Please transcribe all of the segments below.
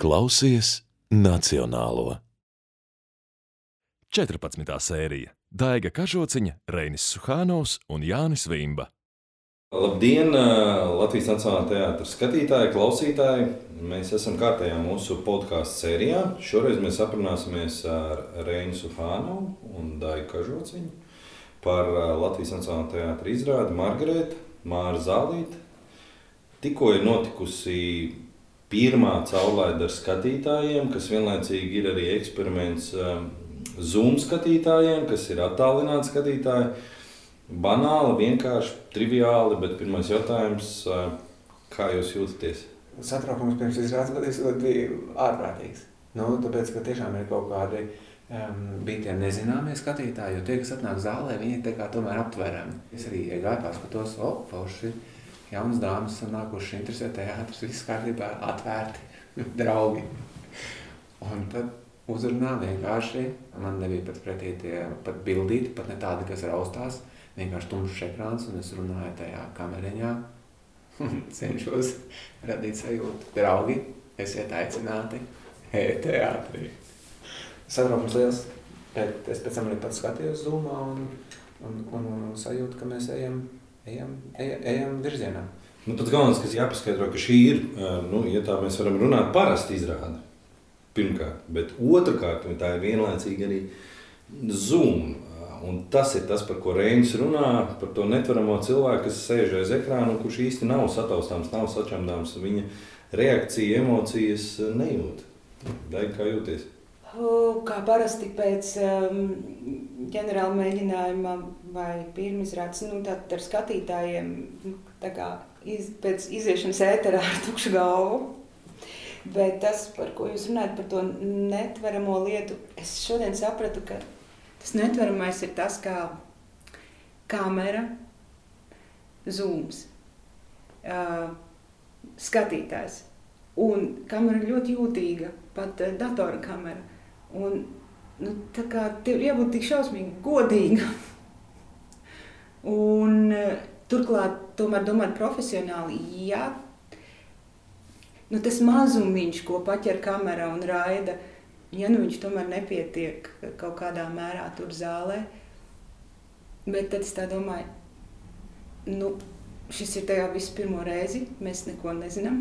Klausies Nacionālo. 14. sērija. Daiga Kažociņa, Reinis Suhānovs un Jānis Vimba. Labdien, Latvijas Nacionālā teātra skatītāji, klausītāji! Mēs esam kārtējā mūsu podkāstu sērijā. Šoreiz mēs aprunāsimies ar Reinu Suhānovu un Daigu Kažociņu par Latvijas Nacionālā teātra izrādi Margarēta, Māra Zālīte. Tikko ir notikusi pirmā caurlaide ar skatītājiem, kas vienlaicīgi ir arī eksperiments Zoom skatītājiem, kas ir attālināti skatītāji. Banāli, vienkārši, triviāli, bet pirmais jautājums, kā jūs jūtaties? Satraukums pirms izrādes bija ārprātīgs. Tāpēc, ka tiešām ir kaut kādi bija tie nezināmie skatītāji, jo tie, kas atnāk zālē, viņi tā kā tomēr aptverami. Es arī iegāju paskatos, forši, jaunas dāmas nākuši interesē teātris, viss kārtībā atvērti, draugi. Un tad uzrunā vienkārši, man nebija pat pretī tie pat bildīti, pat ne tādi, kas raustās, vienkārši tumšs ekrāns, un es runāju tajā kameriņā, cenšos radīt sajūtu. Draugi, esiet aicināti teātrī. Satraukums liels, bet es pēc tam arī pats skatījos Zoomā un sajūtu, ka mēs ejam virzienā. Pats galvenais, kas jāpaskaidro, ka šī ir, ja tā mēs varam runāt, parasti izrāde. Pirmkārt, bet otrkārt, tā ir vienlaicīgi arī Zoom. Un tas ir tas, par ko Reinis runā, par to netveramo cilvēku, kas sēž aiz ekrāna un kurš īsti nav sataustāms, nav sačamdāms. Viņa reakcija, emocijas nejūt. Daiga, kā jūties? Kā parasti pēc ģenerāla mēģinājuma vai pirmizrādes, tātad ar skatītājiem, tā kā pēc iziešanas ēterā ar tukšu galvu. Bet tas, par ko jūs runājat, par to netveramo lietu, es šodien sapratu, ka tas netveramais ir tas, kā kamera, zooms, skatītājs. Un kamera ir ļoti jūtīga, pat datora kamera. Un tā kā tev ir jābūt tik šausmīgi godīga. Un turklāt tomēr domāt profesionāli, tas mazumiņš, ko paķer kamera un raida, viņš tomēr nepietiek kaut kādā mērā tur zālē. Bet tad es tā domāju, šis ir tajā visu pirmo reizi, mēs neko nezinām.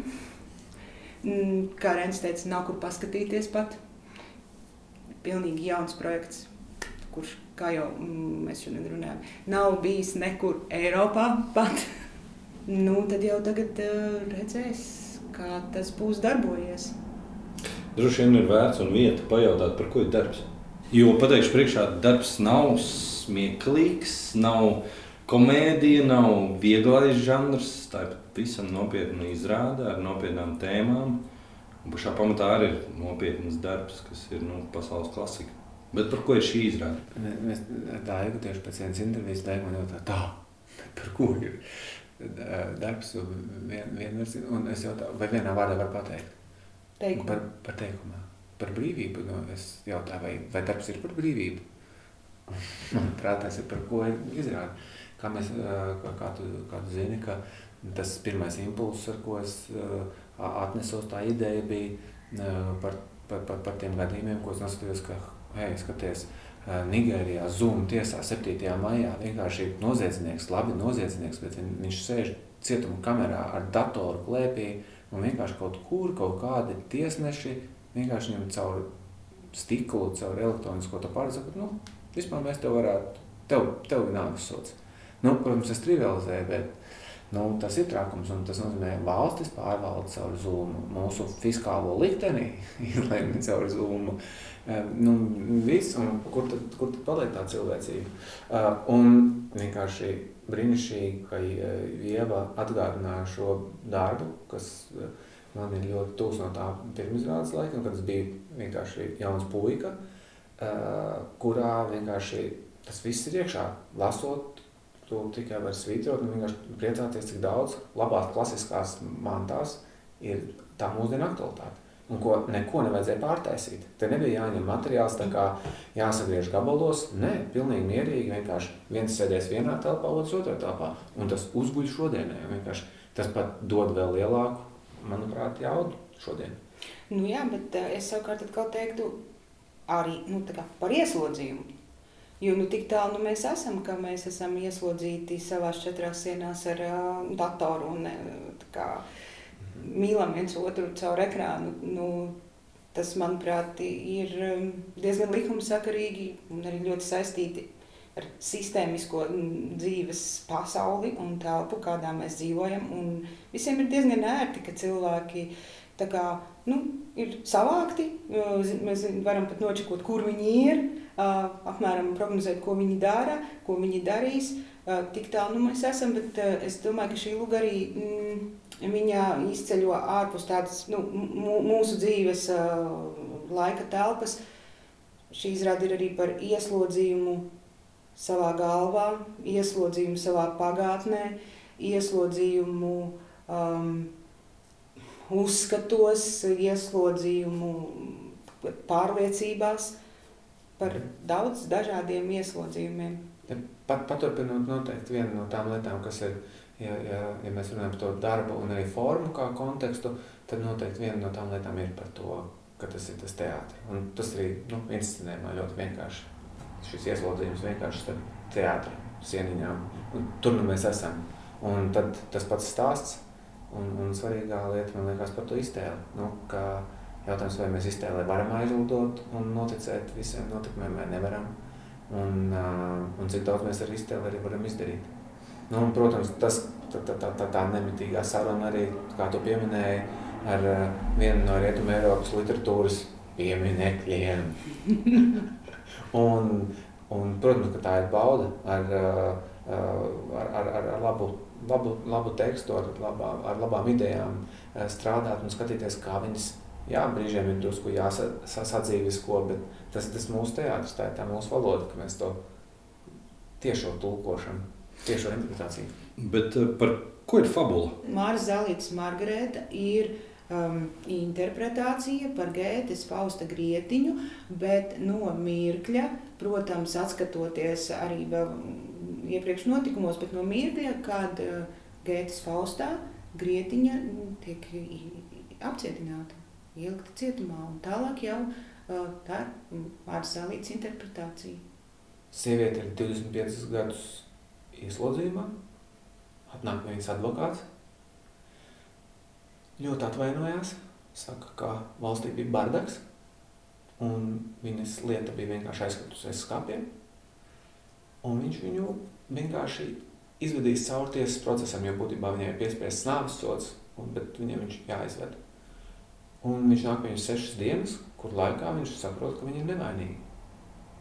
Kā Reinis teica, nav kur paskatīties pat. Pilnīgi jauns projekts, kurš, kā jau mēs šodien runājam, nav bijis nekur Eiropā pat. Tad jau tagad redzēs, kā tas būs darbojies. Droši vien ir vērts un vieta pajautāt, par ko ir darbs. Jo, pateikšu priekšā, darbs nav smieklīgs, nav komēdija, nav vieglais žanrs, tā ir visam nopietna izrāde ar nopietnām tēmām. Un pašā pamatā arī ir nopietnas darbs, kas ir pasaules klasika. Bet par ko ir šī izrāde? Mēs Daigu tieši pēc vienas intervijas Daigu man jautā, par ko ir darbs vienversins, un es jautāju, vai vienā vārdā var pateikt? Par teikumā. Par brīvību. Es jautāju, vai darbs ir par brīvību? Manuprāt, tas ir par ko ir izrāde. Kā tu zini, ka tas pirmais impulss, ar ko es atnesos, tā ideja bija par tiem gadījumiem, ko es noskatījos, ka, skaties, Nigērijā Zoom tiesā 7. maijā vienkārši noziedznieks, bet viņš sēž cietuma kamerā ar datoru klēpī, un vienkārši kaut kādi tiesneši vienkārši viņam caur stiklu, caur elektronisko to pārsaka, vispār mēs tev varētu, tev nākas sots. Protams, es trivializēju, bet tas ir trakums, un tas nozīmē valstis pārvalda caur Zoom, mūsu fiskālo likteni izlēma caur Zoom. Viss, un kur tad paliek tā cilvēcība? Un vienkārši brīnišķīgi, ka Ieva atgādināja šo darbu, kas man ir ļoti tūs no tā pirmizrādes laika, kad es biju vienkārši jauns puika, kurā vienkārši tas viss ir iekšā. Lasot, tu tikai var svītrot un vienkārši priecāties, cik daudz labās klasiskās mantās ir tā mūsdienu aktualitāte. Un ko neko nevajadzēja pārtaisīt. Te nebija jāņem materiāls, tā kā jāsagriež gabalos. Nē, pilnīgi mierīgi, vienkārši viens sēdēs vienā telpā, otrs otrā telpā. Un tas uzguļ šodienai. Tas pat dod vēl lielāku, manuprāt, jaudu šodien. Nu jā, bet es savukārt atkal teiktu arī par ieslodzījumu. Jo tik tālu mēs esam, ka mēs esam ieslodzīti savās 4 sienās ar datoru un mīlam viens otru caur ekrānu. Tas, manuprāt, ir diezgan likumsakarīgi un arī ļoti saistīti ar sistēmisko dzīves pasauli un telpu, kādā mēs dzīvojam. Un visiem ir diezgan ērti, ka cilvēki ir savākti. Mēs varam pat nočekot, kur viņi ir, apmēram prognozēt, ko viņi dara, ko viņi darīs. Tik tālu mēs esam, bet es domāju, ka šī luga arī viņa izceļo ārpus tādas mūsu dzīves laika telpas. Šī izrāde ir arī par ieslodzījumu savā galvā, ieslodzījumu savā pagātnē, ieslodzījumu uzskatos, ieslodzījumu pārliecībās, par daudz dažādiem ieslodzījumiem. Paturpinot noteikti viena no tām lietām, kas ir, ja mēs runājam par to darbu un arī formu kā kontekstu, tad noteikti viena no tām lietām ir par to, ka tas ir tas teātris. Un tas arī inscenējumā ļoti vienkārši. Šis ieslodzījums vienkārši starp teātra sieniņām. Un tur mēs esam. Un tad tas pats stāsts un svarīgā lieta, man liekas, par to iztēli. Ka jautājums, vai mēs iztēlē varam aizlidot un noticēt visiem notikumiem, vai nevaram. Un cik daudz mēs ar iztēli arī varam izdarīt. Un, protams, tā nemitīgā saruna arī, kā tu pieminēji, ar vienu no Rietumē Eiropas literatūras pieminekļiem. Un, protams, ka tā ir bauda ar labu tekstu, ar labām idejām strādāt un skatīties, kā viņas, brīžiem ir drusku jāsadzīvisko, bet tas ir tas mūsu teātris, tā ir tā mūsu valoda, ka mēs to tiešo tulkošanu, tiešo interpretāciju. Bet par ko ir fabula? Māras Zālītes Margarēta ir interpretācija par Gētes Fausta Grietiņu, bet no mirkļa, protams, atskatoties arī vēl iepriekš notikumos, bet no mirkļa, kad Gētes Faustā Grietiņa tiek apcietināta, ielikta cietumā, un tālāk jau tā ir Māras Zālītes interpretācija. Sieviete ir 25 gadus ieslodzījumā, atnāk viņas advokāts, ļoti atvainojās, saka, ka valstī bija bardaks, un viņas lieta bija vienkārši aizskatusies skapiem, un viņš viņu vienkārši izvedīs caur tiesas procesam, jo būtībā viņai ir piespiests nāves sods, bet viņam viņš jāizved. Un viņš nāk viņus 6 dienas, kur laikā viņš saprot, ka viņi ir nevainīgi.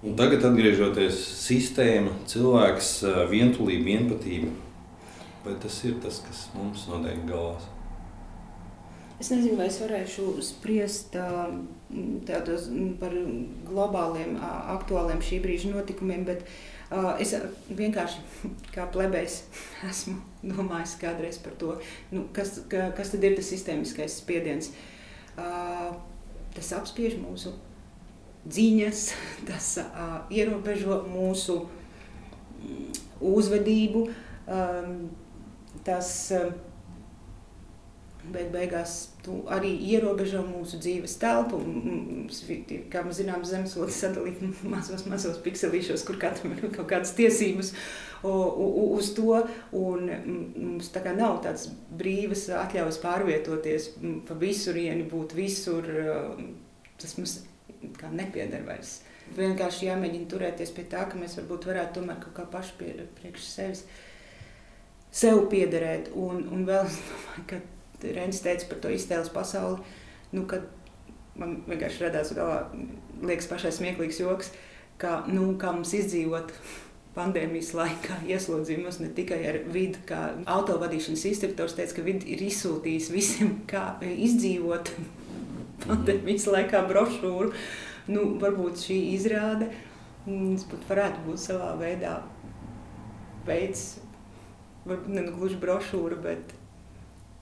Un tagad atgriežoties sistēma, cilvēks, vientulība, vienpatība, vai tas ir tas, kas mums notiek galvās? Es nezinu, vai es varēšu spriest tādos par globāliem, aktuāliem šī brīža notikumiem, bet es vienkārši kā plebejs esmu domājis kādreiz par to, kas tad ir tas sistēmiskais spiediens. Tas apspiež mūsu dziņas, tas ierobežo mūsu uzvedību, tas beigās arī ierobežo mūsu dzīves telpu. Kā mēs zinām, zemeslode sadalīt mazos pikselīšos, kur katram ir kaut kādas tiesības uz to, un mums tā kā nav tāds brīvas atļaujas pārvietoties pa visurieni, būt visur, tas mums kā nepieder vairs. Vienkārši jāmēģina turēties pie tā, ka mēs varbūt varētu tomēr kaut kā paši priekš sev piederēt. Un vēl es domāju, ka Reinis teica par to iztēles pasauli, kad man vienkārši radās galvā, liekas pašai smieklīgs joks, ka mums izdzīvot pandēmijas laikā ieslodzījumos ne tikai ar vidu, kā autovadīšanas instruktors teica, ka vidi ir izsūtījis visiem, kā izdzīvot pandēmijas laikā brošūru. Varbūt šī izrāde varētu būt savā veidā veids, varbūt ne gluži brošūra, bet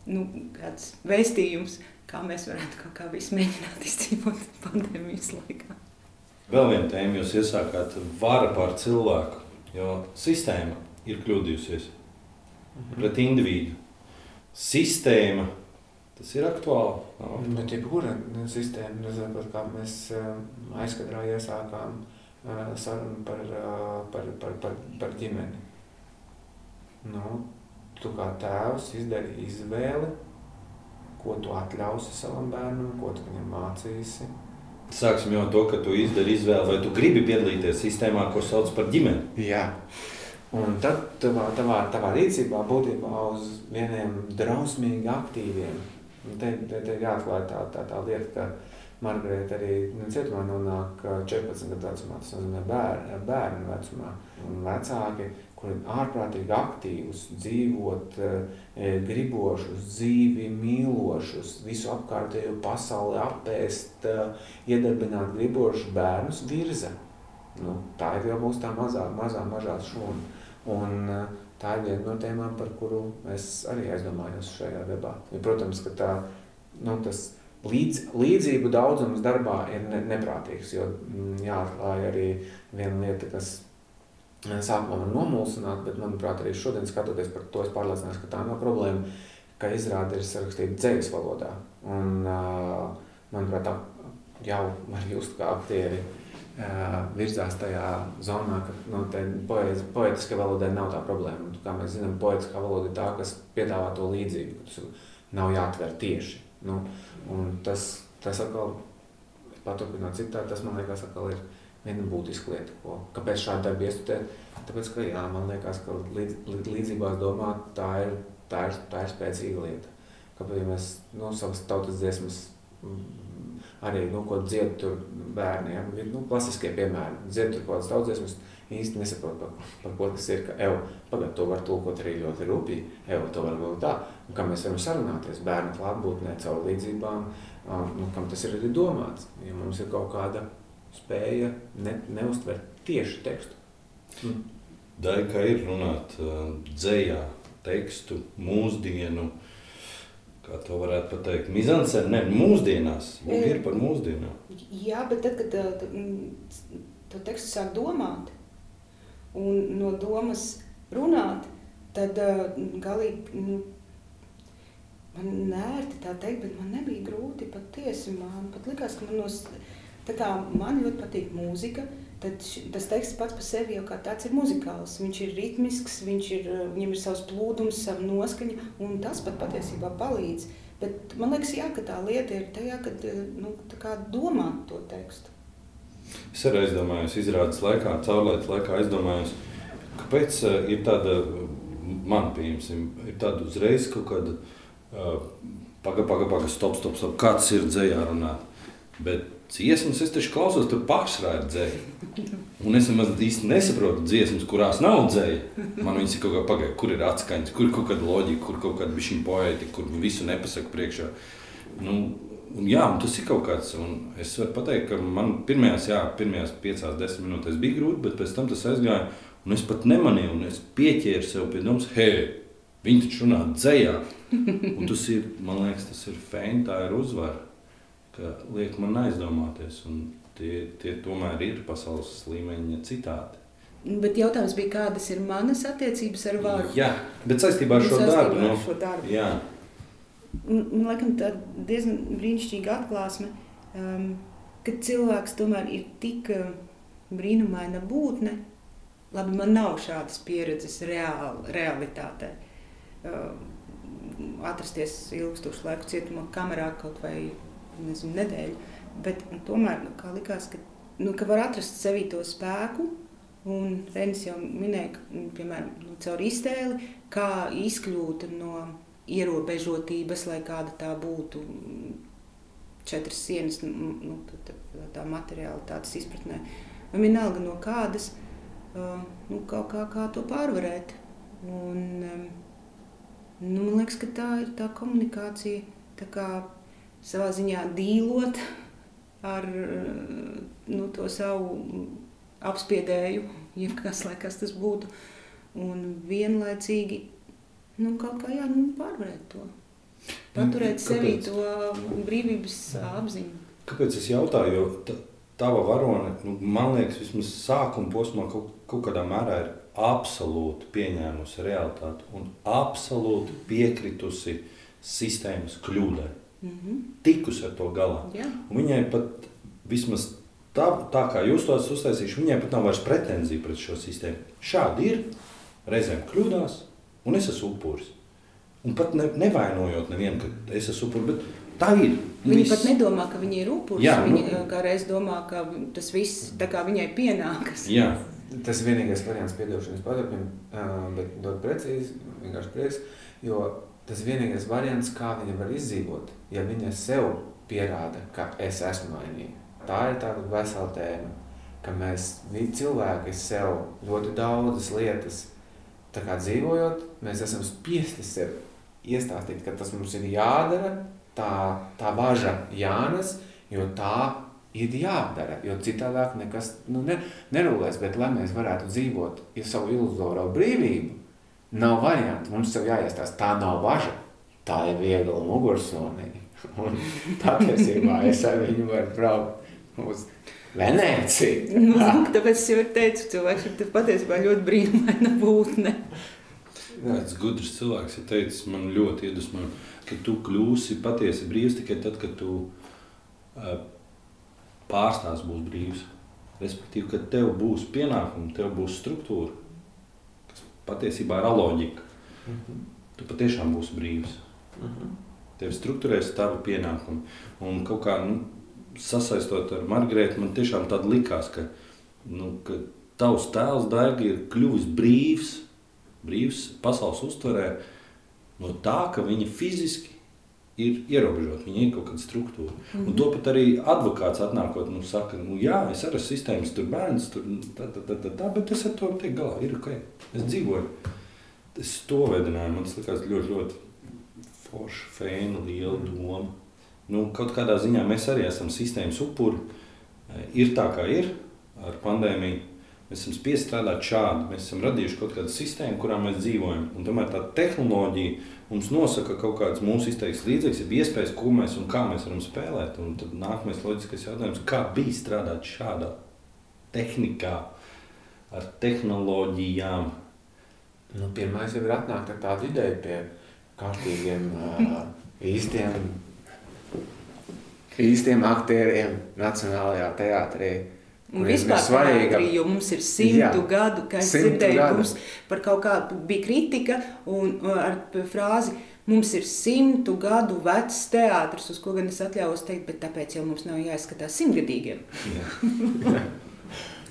kāds vēstījums, kā mēs varētu kaut kā visu mēģināt izdzīvot pandēmijas laikā. Vēl viena tēma, jūs iesākāt vara pār cilvēku, jo sistēma ir kļūdījusies pret individu. Sistēma Tas ir aktuāli. Bet jebkura sistēma, nezinu, kā mēs aizkadrā iesākām sarunu par ģimeni. Tu kā tēvs izdari izvēli, ko tu atļausi savam bērnam, ko tu viņam mācīsi. Sāksim jau to, ka tu izdari izvēli, vai tu gribi piedalīties sistēmā, ko sauc par ģimeni. Jā. Un tad tavā rīcībā būtībā uz vieniem drausmīgi aktīviem. Un te ir jāatklāj tā lieta, ka Margarita arī cietumā nonāk 14 gadu vecumā, tas nozīmē bērnu vecumā. Un vecāki, kuri ārprātīgi aktīvus, dzīvot, gribošus, dzīvi mīlošus, visu apkārtējo pasauli apēst, iedarbināt gribošus bērnus virza. Tā ir jau mūsu tā mazā šūna. Un tā ir viena no tēmām, par kuru es arī aizdomājos šajā debātā. Protams, ka tas līdzību daudzums darbā ir neprātīgs, jo jāatklāj arī viena lieta, kas sākumā man nomulsināt, bet, manuprāt, arī šodien skatoties par to, es pārliecinājos, ka tā nav problēma, ka izrāde ir sarakstīta dzejas valodā. Un, manuprāt, tā jau var just, kā aktieri virzās tajā zonā, ka poetiskā valodai nav tā problēma. Un, kā mēs zinām, poetiskā valoda ir tā, kas piedāvā to līdzību, ka tas nav jāatver tieši. Un tas atkal, paturpināt citādi, tas man liekas atkal ir viena būtiska lieta, kāpēc šādi darbi iestudēt, tāpēc, ka jā, man liekas, ka līdzībās domāt, tā ir spēcīga lieta. Kāpēc, ja mēs savas tautas dziesmas arī, ko dzied tur bērniem, klasiskie piemēri, dzied tur kādas tautas dziesmas, īsti nesaprot, par ko tas ir, ka pagad, to var tulkot arī ļoti rūpīgi, to var būt tā, un kā mēs varam sarunāties bērnu klātbūtnē caur līdzībām, kam tas ir arī domāts, ja mums ir kaut kāda spēja neuztvert tieši tekstu. Dai, kā ir runāt dzejā tekstu, mūsdienu, kā to varētu pateikt, mizanscēna, mūsdienās, ir par mūsdienām. Jā, bet tad, kad to tekstu sāk domāt un no domas runāt, tad galīgi, man nērti tā teikt, bet man nebija grūti patiesi, man pat likās, ka tā kā man ļoti patīk mūzika, tad tas teksts pats par sevi jau kā tāds ir muzikāls. Viņš ir ritmisks, viņam ir savs plūdums, sava noskaņa, un tas pat patiesībā palīdz. Bet man liekas, jā, ka tā lieta ir tajā, kad tā kā domāt to tekstu. Es arī aizdomājos izrādes laikā, caurlaides laikā aizdomājos, kāpēc ir tāda, man pieņemsim, ir tāda uzreiz kaut kāda paga, stop, kā tas ir dzejā runāt. Bet dziesmas es taču klausos, tur pārsvarā ir dzeja. Un es īsti nesaprotu dziesmas, kurās nav dzeja. Man viņas ir kaut kā pagaida, kur ir atskaņas, kur ir kaut kāda loģika, kur kaut kāda bišķiņa poētika, kur visu nepasaka priekšā. Un tas ir kaut kāds. Un es varu pateikt, ka man pirmajās 5-10 minūtēs bija grūti, bet pēc tam tas aizgāja. Un es pat nemanīju, un es pieķēru sev pie domas, viņi taču runā dzejā. Un tas ir, man liekas, tas ir feini, tā ir uzvara. Ka liek man aizdomāties, un tie tomēr ir pasaules līmeņa citāti. Bet jautājums bija, kādas ir manas attiecības ar varu? Jā, bet saistībā ar šo darbu. Jā. Man laikam tā diezgan brīnišķīga atklāsme, ka cilvēks tomēr ir tik brīnumaina būtne. Labi, man nav šādas pieredzes realitātē. Atrasties ilgstošu laiku cietumā kamerā kaut vai nedēļu, bet tomēr kā likās, ka var atrast sevī to spēku, un Reinis jau minēja, piemēram, caur iztēli, kā izkļūt no ierobežotības, lai kāda tā būtu 4 sienas, tā materiālitātes izpratnē, un vienalga no kādas, kā to pārvarēt. Un, man liekas, ka tā ir tā komunikācija, tā kā savā ziņā dīlot ar to savu apspiedēju, jebkas, lai kas tas būtu, un vienlaicīgi kaut kā pārvarēt to, paturēt sevī to brīvības apziņu. Kāpēc es jautāju, jo tava varone, man liekas, vismaz sākuma posmā kaut kādā mērā ir absolūti pieņēmusi realitāti un absolūti piekritusi sistēmas kļūdai. Tikus ar to galā. Jā. Un viņai pat vismaz tā kā jūs to esat uztaisījuši, viņai pat nav vairs pretenzija pret šo sistēmu. Šādi ir, reizēm kļūdās, un es esmu upuris. Un pat nevainojot nevienu, ka es esmu upuris, bet tā ir. Viņa pat nedomā, ka viņa ir upuris. Viņa kā reiz domā, ka tas viss tā kā viņai pienākas. Jā. Tas ir vienīgais variants piedošanas padarpim, bet dot precīzi, vienkārši prieks, jo tas ir vienīgais variants, kā viņa var izdzīvot, ja viņa sev pierāda, ka es esmu vainīga. Tā ir tāda vesela tēma, ka mēs cilvēki sev ļoti daudzas lietas, tā kā dzīvojot, mēs esam spiesti sev iestāstīt, ka tas mums ir jādara, tā važa jānes, jo tā ir jādara, jo citādāk nekas nerulēs, bet lai mēs varētu dzīvot savu iluzoro brīvību, nav variantu, mums sev jāiestāst, tā nav važa, tā ir viegla mugursomīga. Un patiesībā es ar viņu varu braukt uz Venēciju. Tāpēc es jau teicu, cilvēks ir patiesībā ļoti brīnumaina būtne. Tāds gudrs cilvēks ir teicis, man ļoti iedvesmo, ka tu kļūsi patiesi brīvs tikai tad, kad tu pārstāvs būs brīvs. Respektīvi, kad tev būs pienākumi, tev būs struktūra, kas patiesībā ir aloģika. Tu patiešām būsi brīvs. Tev struktūrēs tavi pienākumi. Un kaut kā sasaistot ar Margaretu, man tiešām tāda likās, ka tavs tēls Daiga ir kļuvis brīvs pasaules uztverē no tā, ka viņa fiziski ir ierobežota, viņa ir kaut kāda struktūra. Un to pat arī advokāts atnākot, saka, jā, es arī esmu sistēmas, tur bērns, tur bet es ar to tiek galā, ir ok, es dzīvoju. Es to veidināju, man tas likās ļoti, ļoti forša, fēna, liela doma. Kaut kādā ziņā mēs arī esam sistēmas upuri. Ir tā, kā ir ar pandēmiju. Mēs esam spiesti strādāt šādi. Mēs esam radījuši kaut kādu sistēmu, kurā mēs dzīvojam. Un tomēr tā tehnoloģija mums nosaka kaut kāds mūsu izteiks līdzeklis, ir iespējas, ko mēs un kā mēs varam spēlēt. Un tad nākamais loģiskais jautājums, kā bija strādāt šādā tehnikā, ar tehnoloģijām? Pirmais jau ir atnākt ar tādu ideju pie kārtīgiem, īstiem aktieriem Nacionālajā teātrī. Un vispār teātrī, jo mums ir 100 gadu, kā es dzirdēju, mums par kaut kādu bija kritika un ar frāzi, mums ir 100 gadu vecs teātris, uz ko gan es atļaujos teikt, bet tāpēc jau mums nav jāizskatās 100-gadīgiem.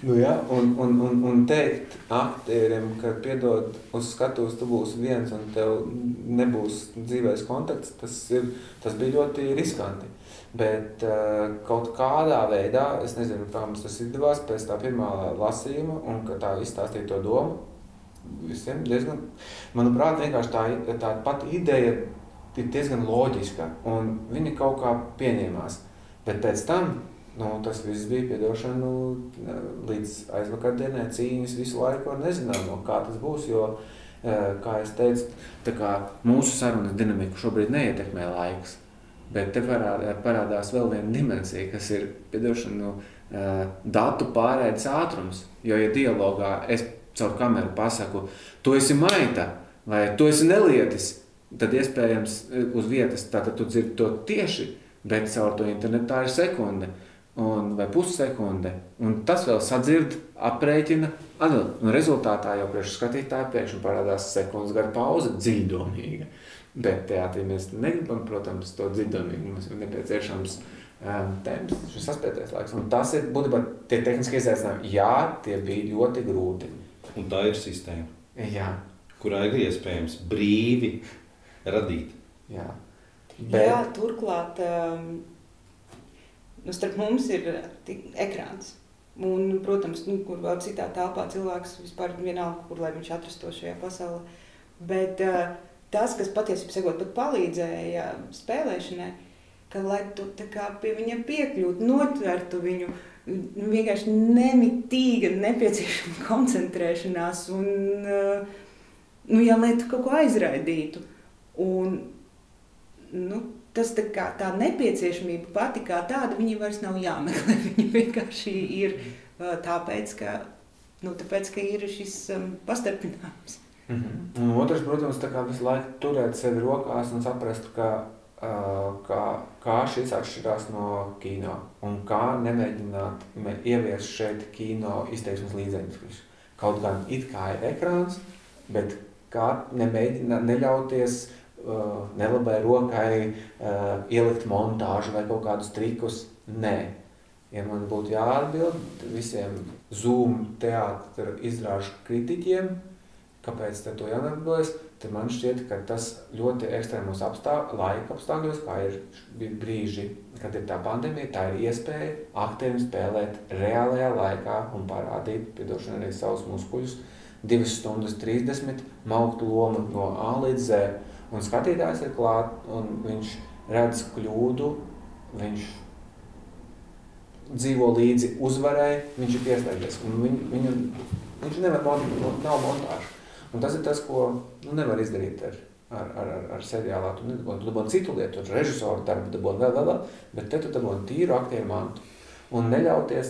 Un teikt aktieriem, ka piedod uz skatuves, tu būsi viens un tev nebūs dzīvēs kontakts, tas bija ļoti riskanti. Bet kaut kādā veidā, es nezinu, kā mums tas izdevās pēc tā pirmā lasījuma un ka tā izstāstīja to domu visiem diezgan, manuprāt, vienkārši tā pati ideja ir diezgan loģiska un viņi kaut kā pieņēmās. Bet pēc tam, tas viss bija piedošana līdz aizvakardienai cīņas visu laiku ar nezināmo, kā tas būs, jo, kā es teicu, tā kā mūsu sarunas dinamiku šobrīd neietekmē laiks. Bet te parādās vēl viena dimensija, kas ir datu pārēdes ātrums. Jo, ja dialogā es caur kameru pasaku, tu esi maita vai tu esi nelietis, tad iespējams uz vietas tātad tu dzirdi to tieši, bet caur to internetā ir sekunde vai pussekunde. Un tas vēl sadzird, aprēķina, un rezultātā jau priekš skatītāju pēkšņi parādās sekundes gara pauze dziļdomīga. Bet teātrī mēs negribam, protams, to dziļdomīgi. Mums ir nepieciešams temps, šis saspētais laiks. Un tas ir būtībā tie tehniskie izaicinājumi. Jā, tie bija ļoti grūti. Un tā ir sistēma, Jā. kurā ir iespējams brīvi radīt. Jā, Jā, turklāt starp mums ir ekrāns. Un, protams, kur vēl citā telpā cilvēks vispār vienalga, kur lai viņš atrastos šajā pasaulē. Bet tas, kas patiesībā sakot pat palīdzēja spēlēšanai, ka lai tu tā kā pie viņa piekļūtu, notvertu viņu, vienkārši nemitīga nepieciešama koncentrēšanās un, lai tu kaut ko aizraidītu. Un, tas tā nepieciešamība pati kā tāda, viņa vairs nav jāmeklē, viņa vienkārši ir tāpēc, ka ir šis pastarpinājums. Un otrs, protams, tā kā visu laiku turēt sevi rokās un saprast, kā šis atšķirās no kino un kā nemēģināt ieviest šeit kino izteiksmes līdzekļus. Kaut gan it kā ir ekrāns, bet kā neļauties nelabai rokai ielikt montāžu vai kaut kādus trikus. Nē. Ja man būtu jāatbild visiem Zoom teātra izrāžu kritiķiem, kāpēc to jāatbildas, tad man šķiet, ka tas ļoti ekstrēmos laika apstākļos, kā ir brīži, kad ir tā pandēmija, tā ir iespēja aktierim spēlēt reālajā laikā un parādīt, piedošana arī savus muskuļus, 2 stundas 30, maukt lomu no A līdz Z. Un skatītājs ir klāt, un viņš redz kļūdu, viņš dzīvo līdzi uzvarai, viņš ir pieslēdzies. Viņš nav montāžu. Un tas ir tas, ko nevar izdarīt ar seriālā. Tu dabūni citu lietu, režisoru darbu dabūni vēl, bet te tu dabūni tīru aktieru mantu. Un neļauties,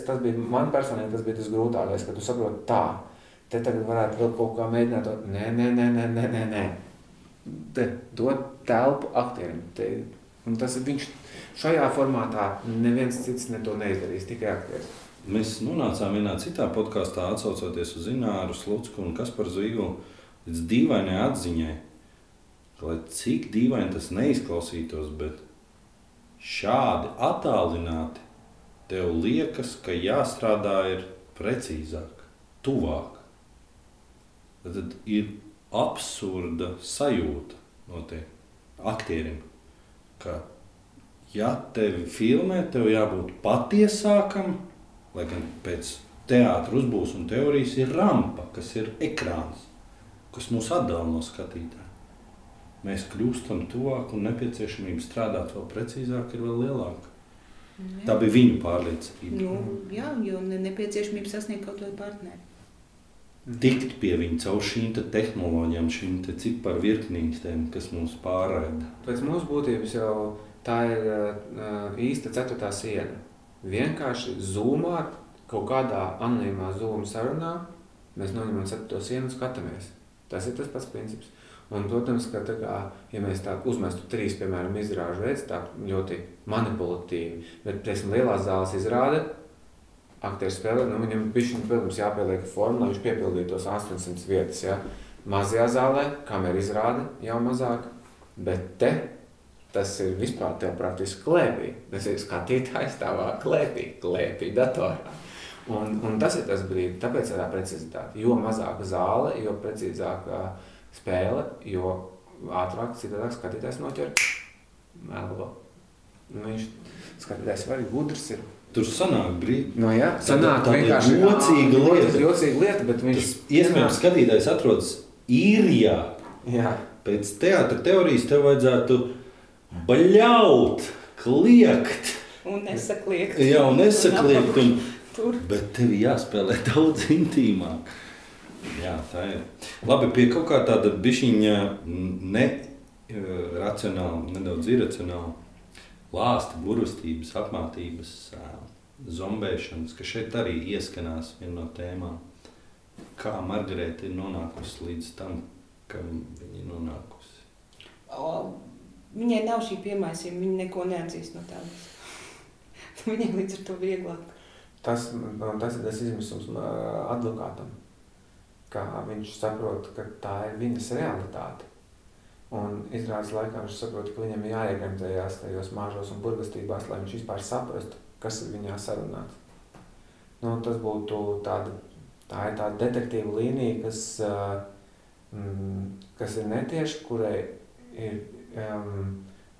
man personīgi tas bija tas grūtākais, ka tu saproti tā. Te tagad varētu vēl kaut kā mēģināt to, nē. Te dod telpu aktierim. Un tas ir viņš šajā formātā neviens cits to neizdarīs, tikai aktieris. Mēs nonācām vienā citā podkastā, atsaucoties uz Ināru Slucku un Kasparu Zīgulu, līdz dīvainai atziņai, lai cik dīvaini tas neizklausītos, bet šādi attālināti tev liekas, ka jāstrādā ir precīzāk, tuvāk. Tad ir absurda sajūta no tie aktierim, ka ja tevi filmē, tev jābūt patiesākam, lai gan pēc teātra uzbūves un teorijas ir rampa, kas ir ekrāns, kas mūs atdala no skatītāja. Mēs kļūstam tuvāk un nepieciešamība strādāt vēl precīzāk ir vēl lielāka. Jā. Tā bija viņu pārliecība. Jā, jo nepieciešamība sasniegt kaut vai partneri. Tikt pie viņa caur šīm tehnoloģijām, šīm ciparu virknītēm, kas mūs pārraida. Pēc mūsu būtības jau tā ir īsta 4. siena. Vienkārši Zoomā, kaut kādā anonīmā Zoom sarunā, mēs noņemam 4. sienu un skatāmies. Tas ir tas pats princips. Un, protams, ka tā kā, ja mēs tā uzmestu 3, piemēram, izrāžu veids, tā ļoti manipulatīvi, bet, teiksim, lielās zāles izrāda, aktieris spēlē, viņam bišķiņ, protams, jāpieliek forma, lai viņš piepildītu tos 800 vietas, ja. Mazajā zālē, kamera izrāda jau mazāk, bet te tas ir vispār tev praktiski klēpī. Tas ir skatītājs tavā klēpī datorā. Un tas ir tas brīdis, tāpēc ir tā precizitāte. Jo mazāka zāle, jo precīzāka spēle, jo ātrāk citādāk skatītājs noķer melo. Viņš skatītājs var gudrs ir. Tur sanāk brīdi. Jā, sanāk vienkārši jocīga lieta, bet viņš... Iespējams, skatītājs atrodas īrijā. Jā. Pēc teātra teorijas tev vajadzētu baļaut, kliegt. Un nesakliegt. Jā, un nesakliegt. Bet tev jāspēlē daudz intīmāk. Jā, tā ir. Labi, pie kaut kā tāda bišķiņa racionāla, nedaudz iracionāla lāsta, burvestības, apmātības, zombēšanas, ka šeit arī ieskanās viena no tēmām. Kā Margarēta ir nonākusi līdz tam, ka viņa ir nonākusi? Viņai nav šī piemaisījuma, viņa neko neatzīst no tādas. Viņai līdz ar to vieglāk. Tas ir tas izmisums advokātam, kā viņš saprot, ka tā ir viņas realitāte. Un izrādes laikā viņš saprot, ka viņam jāiegremtējās tajos māžos un burvestībās, lai viņš vispār saprastu, kas ir viņā sarunāts. Tas būtu tā ir tāda detektīva līnija, kas ir netieši, kurai ir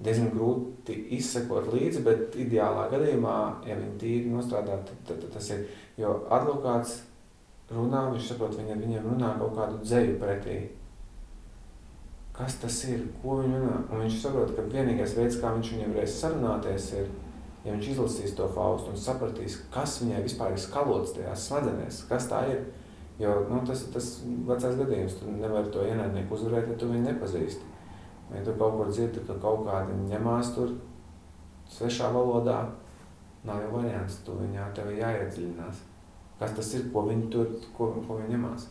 diezgan grūti izsekot līdzi, bet ideālā gadījumā, ja viņi tīri nostrādā, tad tas ir, jo advokāts runā, viņš saprot, viņiem runā kaut kādu dzeju pretī. Kas tas ir? Ko viņi runā? Un viņš saprot, ka vienīgais veids, kā viņš viņiem varēs sarunāties, ir, ja viņš izlasīs to Faustu un sapratīs, kas viņai vispār ir skalots tajās smadzenēs, kas tā ir. Jo tas ir tas vecais gadījums, tu nevari to ienaidnieku uzvarēt, ja tu viņu nepazīsti. Ja tu kaut kur dzirdi, ka kaut kādi ņemās tur svešā valodā, nav jau variants, tu viņā tev jāiedziļinās. Kas tas ir, ko viņi tur, ko viņi ņemās?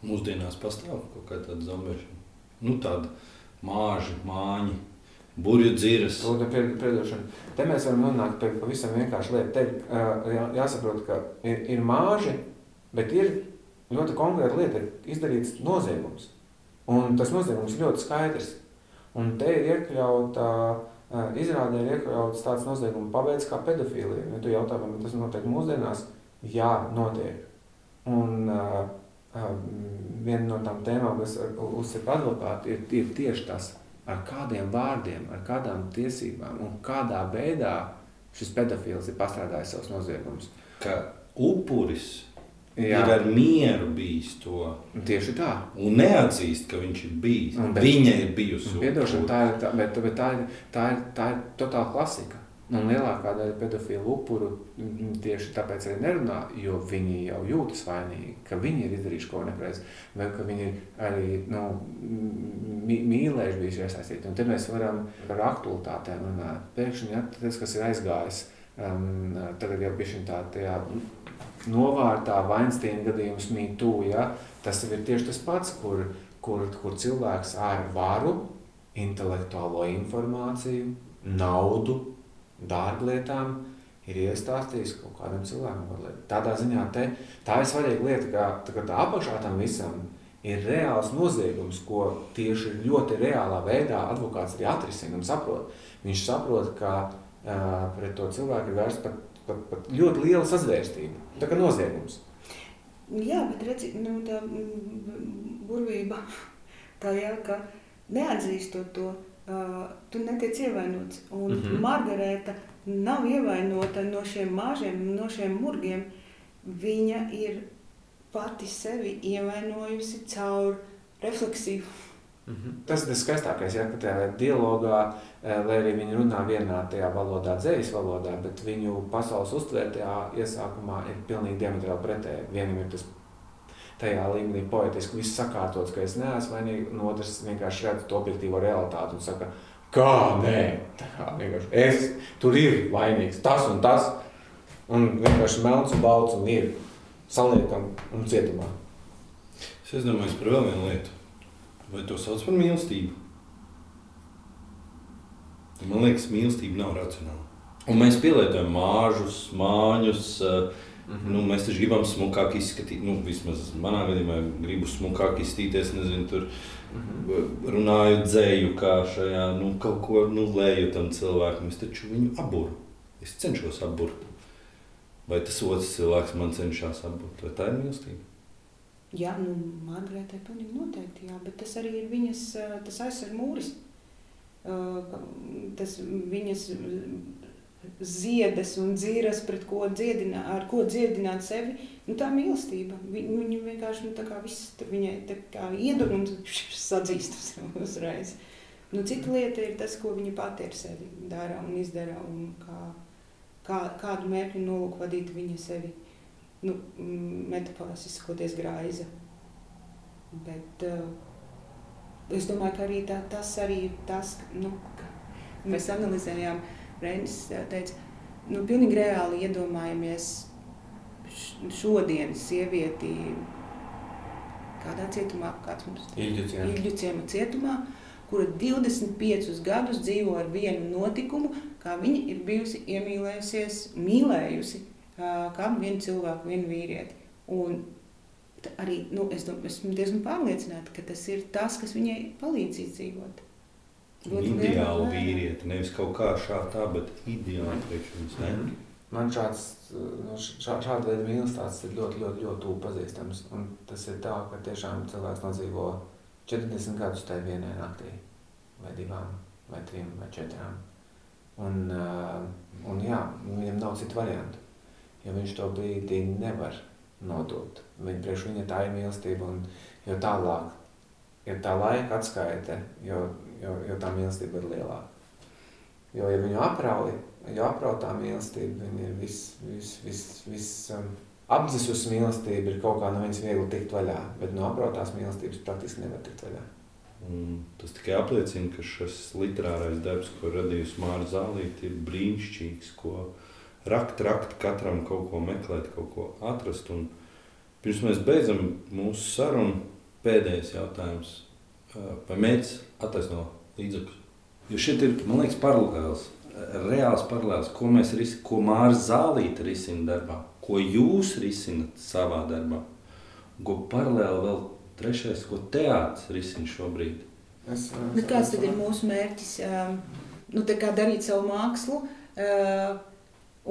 Mūsdienās pastāv kaut kā tāda zombēšana. Nu, tāda māži, māņi, burju dziras. Te mēs varam nonākt pie pavisam vienkārši lietu. Te jāsaprot, ka ir māži, bet ir ļoti konkrēta lieta, ir izdarīts noziegums. Un tas noziegums ir ļoti skaidrs. Un te ir iekļauta, izrādē ir iekļauts tāds nozieguma paveids kā pedofīlija. Ja tu jautā, vai tas notiek mūsdienās? Jā, notiek. Un viena no tām tēmām, kas uzsaka advokāti, ir tieši tas, ar kādiem vārdiem, ar kādām tiesībām un kādā veidā šis pedofīls ir pastrādājis savus noziegumus. Ka upuris ir ar mieru bijis to. Tieši tā. Un neatzīst, ka viņš ir bijis. Viņa ir bijusi. Piedošana, bet tā ir totāla klasika. Un lielākā daļa pedofilu upuru tieši tāpēc arī nerunā, jo viņi jau jūtas vainīgi, ka viņi ir izdarījuši ko nepareizi, vai ka viņi ir arī mīlējuši bijuši iesaistīti. Un te mēs varam par aktualitātēm runāt. Pēkšņi, tas, kas ir aizgājis, tagad jau bišķiņ tajā novārtā Weinsteina gadījums Me Too, ja? Tas ir tieši tas pats, kur cilvēks ar varu, intelektuālo informāciju, naudu, dārglietām ir iestāstījis kaut kādam cilvēkam. Tādā ziņā tā ir svarīga lieta, ka tā apakšā tam visam ir reāls noziegums, ko tieši ļoti reālā veidā advokāts arī atrisina un saprot. Viņš saprot, ka pret to cilvēku ir vērsts pat ļoti liela sazvērstība. Tā kā noziegums. Jā, bet redzi, tā burvība tā ka neatzīstot to, tu netiec ievainots. Un Margarēta nav ievainota no šiem māžiem, no šiem murgiem. Viņa ir pati sevi ievainojusi caur refleksiju. Tas ir skaistākais, ka tajā dialogā, lai arī viņi runā vienā tajā valodā, dzejas valodā, bet viņu pasaules uztvērtajā iesākumā ir pilnīgi diametrāli pretēji. Vienam ir tas tajā līmenī poetiski viss sakārtots, ka es neesmu vainīgi, un otrs vienkārši redz to objektīvo realitāti un saka, kā nē, tā vienkārši tur ir vainīgs, tas un tas, un vienkārši melns un balts un ir saliekam un cietumā. Es domāju par vēl vienu lietu. Vai to sauc par mīlestību? Man liekas, mīlestība nav racionāla. Un mēs pielietojam māžus, māņus, mēs taču gribam smukāk izskatīt, vismaz manā gadījumā gribu smukāk izstīties, nezinu, tur runāju dzēju kā šajā, kaut ko lēju tam cilvēkam, es taču viņu aburu, es cenšos aburt. Vai tas otrs cilvēks man cenšas aburt, vai tā ir mīlestība? Jā, Margarētai pilnīgi noteikti, jā, bet tas arī ir viņas, tas aizsarg mūris, tas viņas ziedas un dzīras, pret ko ar ko dziedināt sevi, tā mīlestība. Viņa vienkārši, tā kā viss, viņai tā kā iedur un sadzīst uzreiz. Cita lieta ir tas, ko viņa pati ar sevi dara un izdara un kādu mērķu nolūku vadīt viņa sevi. Metaforiski izsakoties graiza. Bet es domāju, ka arī tas arī ir tas, ka mēs analizējām, Reinis teica, pilnīgi reāli iedomājamies šodienas sievieti kādā cietumā, kāds mums Ilģu ciema cietumā, kura 25 gadus dzīvo ar vienu notikumu, kā viņa ir bijusi mīlējusi kādu vienu cilvēku, vienu vīrieti. Un arī, esmu diezgan pārliecināta, ka tas ir tas, kas viņai palīdz izdzīvot. Ideāli vīrieti, nevis kaut kā tā, bet ideāli priekš viņas, ne? Man šāda veida mīlestība ir ļoti, ļoti, ļoti tuvu pazīstams. Un tas ir tā, ka tiešām cilvēks nodzīvo 40 gadus tajā vienai naktī, vai 2, vai 3, vai 4. Un jā, viņam nav citu variantu. Jo viņš to brīdī nevar nodot. Priekš viņa tā ir mīlestība, un jo tālāk ir tā laika atskaite, jo tā mīlestība ir lielāka. Jo, ja viņu aprauj tā mīlestība, viņa ir apdzesus mīlestība ir kaut kā no viņas viegli tikt vaļā, bet no aprautās mīlestības praktiski nevar tikt vaļā. Tas tikai apliecina, ka šis literārais darbs, ko radījusi Māra Zālīte, ir brīnišķīgs, ko rakt, katram kaut ko meklēt, kaut ko atrast. Un pirms mēs beidzam mūsu sarunu, pēdējais jautājums. Vai mērķis attaisno līdzekļus? Jo šeit ir, man liekas, paralēls, reāls paralēls, ko Mārs Zālīte risina darbā, ko jūs risinat savā darbā, ko paralēli vēl trešais, ko teātris risina šobrīd. Bet kāds tad ir mūsu mērķis? Tā kā darīt savu mākslu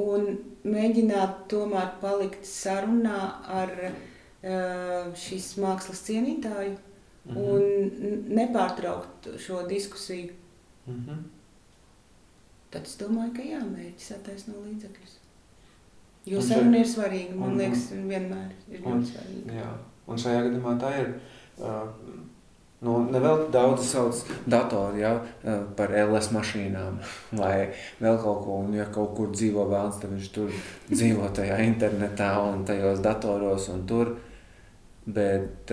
un mēģināt tomēr palikt sarunā ar šīs mākslas cienītāju un nepārtraukt šo diskusiju. Tad es domāju, ka mērķis attaisno līdzekļus. Jo saruna ir svarīga, man liekas, vienmēr ir ļoti svarīga. Jā, un šajā gadījumā tā ir... Nevēl daudz sauc datori par LS mašīnām vai vēl kaut ko, un ja kaut kur dzīvo vēlns, tad viņš tur dzīvo tajā internetā un tajos datoros un tur, bet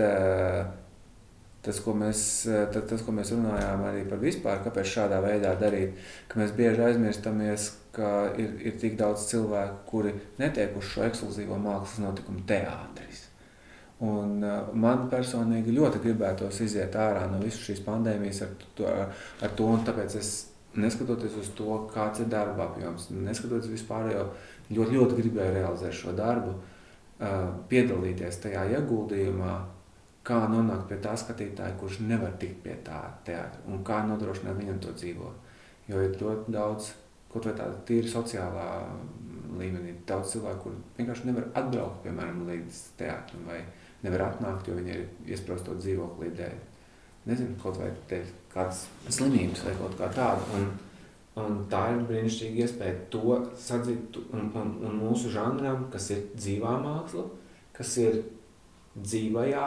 tas, ko mēs runājām arī par vispār, kāpēc šādā veidā darīt, ka mēs bieži aizmirstamies, ka ir tik daudz cilvēku, kuri netiek uz šo ekskluzīvo mākslas notikumu teātris. Un man personīgi ļoti gribētos iziet ārā no visas šīs pandēmijas ar to, un tāpēc es, neskatoties uz to, kāds ir darba apjoms, neskatoties vispārējo, ļoti gribēju realizēt šo darbu, piedalīties tajā ieguldījumā, kā nonākt pie tā skatītāja, kurš nevar tikt pie tā teātra, un kā nodrošināt viņam to dzīvot. Jo ir ļoti daudz, kaut vai tāda tīri sociālā līmenī, daudz cilvēku, kur vienkārši nevar atbraukt, piemēram, līdz teātram, vai nevar atnākt, jo viņi ir iesprostot dzīvoklī dēļ. Nezinu, kaut vai dēļ kādas slimības vai kaut kā tāda. Un tā ir brīnišķīga iespēja to sadzīt un mūsu žanram, kas ir dzīvā māksla, kas ir dzīvajā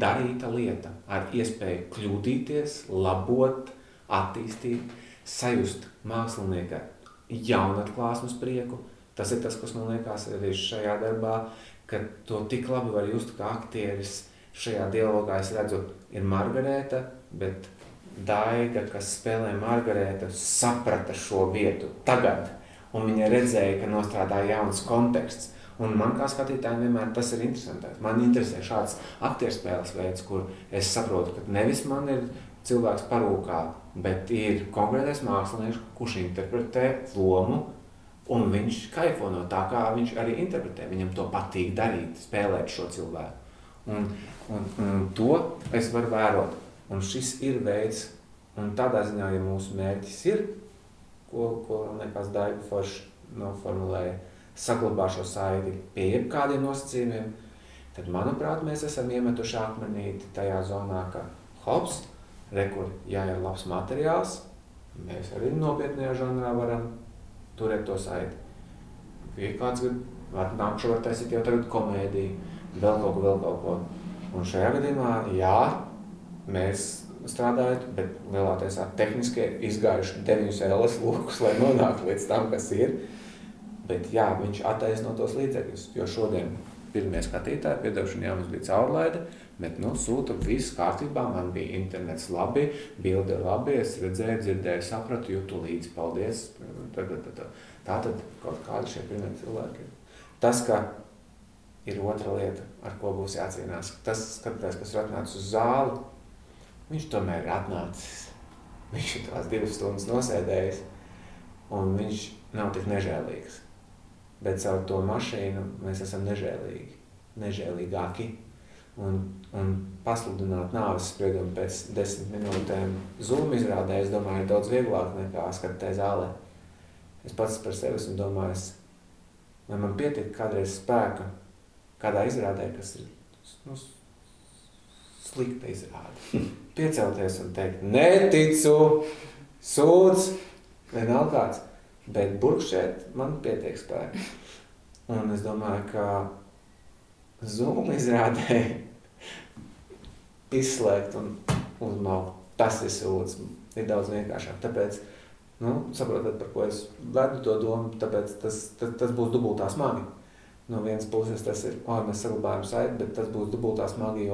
darīta lieta, ar iespēju kļūdīties, labot, attīstīt, sajust mākslinieka jaunatklāsmes prieku. Tas ir tas, kas man liekas arī šajā darbā, ka to tik labi var just, kā aktieris šajā dialogā, es redzu, ir Margarēta, bet Daiga, kas spēlē Margarētu, saprata šo vietu tagad, un viņa redzēja, ka nostrādā jauns konteksts. Un man kā skatītājiem vienmēr tas ir interesantāks. Man interesē šāds aktierspēles veids, kur es saprotu, ka nevis man ir cilvēks parūkā, bet ir konkrētais mākslinieks, kurš interpretē lomu, un viņš kaifo no tā, kā viņš arī interpretē. Viņam to patīk darīt, spēlēt šo cilvēku. Un to es varu vērot. Un šis ir veids, un tādā ziņā, ja mūsu mērķis ir, ko liekas Daiga forši noformulēja, saglabā šo saiti pie jebkādiem nosacījumiem, tad, manuprāt, mēs esam iemetuši akmenīti tajā zonā, ka hops, rekur, ja ir labs materiāls, mēs arī nopietnējā žanrā varam turēt to saiti. Ja kāds nākšu var taisīt jau tagad komēdiju, vēl kaut ko. Un šajā gadījumā, mēs strādājot, bet lielāties tehniski izgājuši 9 LS lokus, lai nonāktu līdz tam, kas ir. Bet viņš attaisno tos līdzekļus, jo šodien pirmie skatītāji, piedošana mums bija caurlaide, bet sūta viss kārtībā, man bija internets labi, bilde labi, es redzēju, dzirdēju, sapratu, jūtu līdzi, paldies. Tātad kaut kādi šie pirmie cilvēki. Tas, ka ir otra lieta, ar ko būs jācīnās, tas skatītājs, kas ir atnācis uz zāli, viņš tomēr ir atnācis, viņš ir tās 2 stundas nosēdējis, un viņš nav tik nežēlīgs. Bet caur to mašīnu mēs esam nežēlīgāki. Un pasludināt nāves spriedumu pēc 10 minūtēm Zoom izrādē, es domāju, ir daudz vieglāk nekā skatīt zālē. Es pats par sevi esmu domājis, vai man pietiek kādreiz spēka kādā izrādē, kas ir slikta izrāde. Piecelties un teikt, neticu, sūdz, vienalga kāds. Bet burkšķēt man pietiek spēka. Un es domāju, ka Zoom izrādē izslēgt un uzmaukt, tas ir sūds, ir daudz vienkāršāk. Tāpēc, saprotat, par ko es vedu to domu, tāpēc tas būs dubultā smagi. No vienas puses tas ir, mēs saglabājam saiti, bet tas būs dubultā smagi,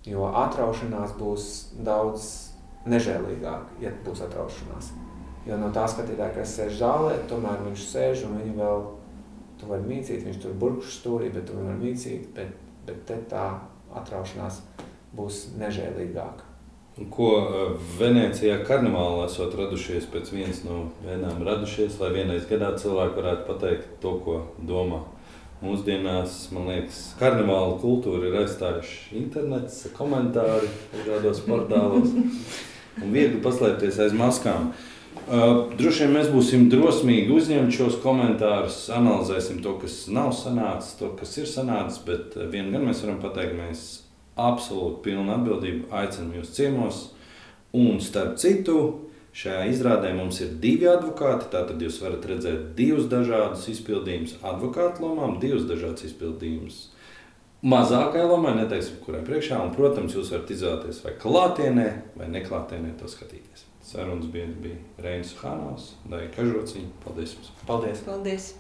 jo atraušanās būs daudz nežēlīgāk, ja būs atraušanās. Jo no tā skatītāja, kas sēž zālē, tomēr viņš sēž un viņu vēl, tu vari mīcīt, viņš tur burkšu stūrī, bet tu viņu var mīcīt, bet te tā atraušanās būs nežēlīgāka. Ko Venecijā karnevālā esot radušies pēc vienas no vienām radušies, lai vienreiz gadā cilvēki varētu pateikt to, ko domā. Mūsdienās, man liekas, karnevāla kultūra ir aizstājuši internets, komentāri dažādos portālos un viegli paslēpties aiz maskām. Droši vien mēs būsim drosmīgi uzņemt šos komentārus, analizēsim to, kas nav sanācis, to, kas ir sanācis, bet vien gan mēs varam pateikt, mēs absolūti pilnu atbildību aicinām jūs ciemos. Un starp citu, šajā izrādē mums ir 2 advokāti, tātad jūs varat redzēt 2 dažādus izpildījumus advokātu lomām, 2 dažādas izpildījumus mazākai lomai, neteiksim, kurai priekšā, un, protams, jūs varat izvēlēties vai klātienē, vai neklātienē to skatīties. Sarunas bija Reinis Suhanovs, Daiga Kažociņa. Paldies jums! Paldies! Paldies!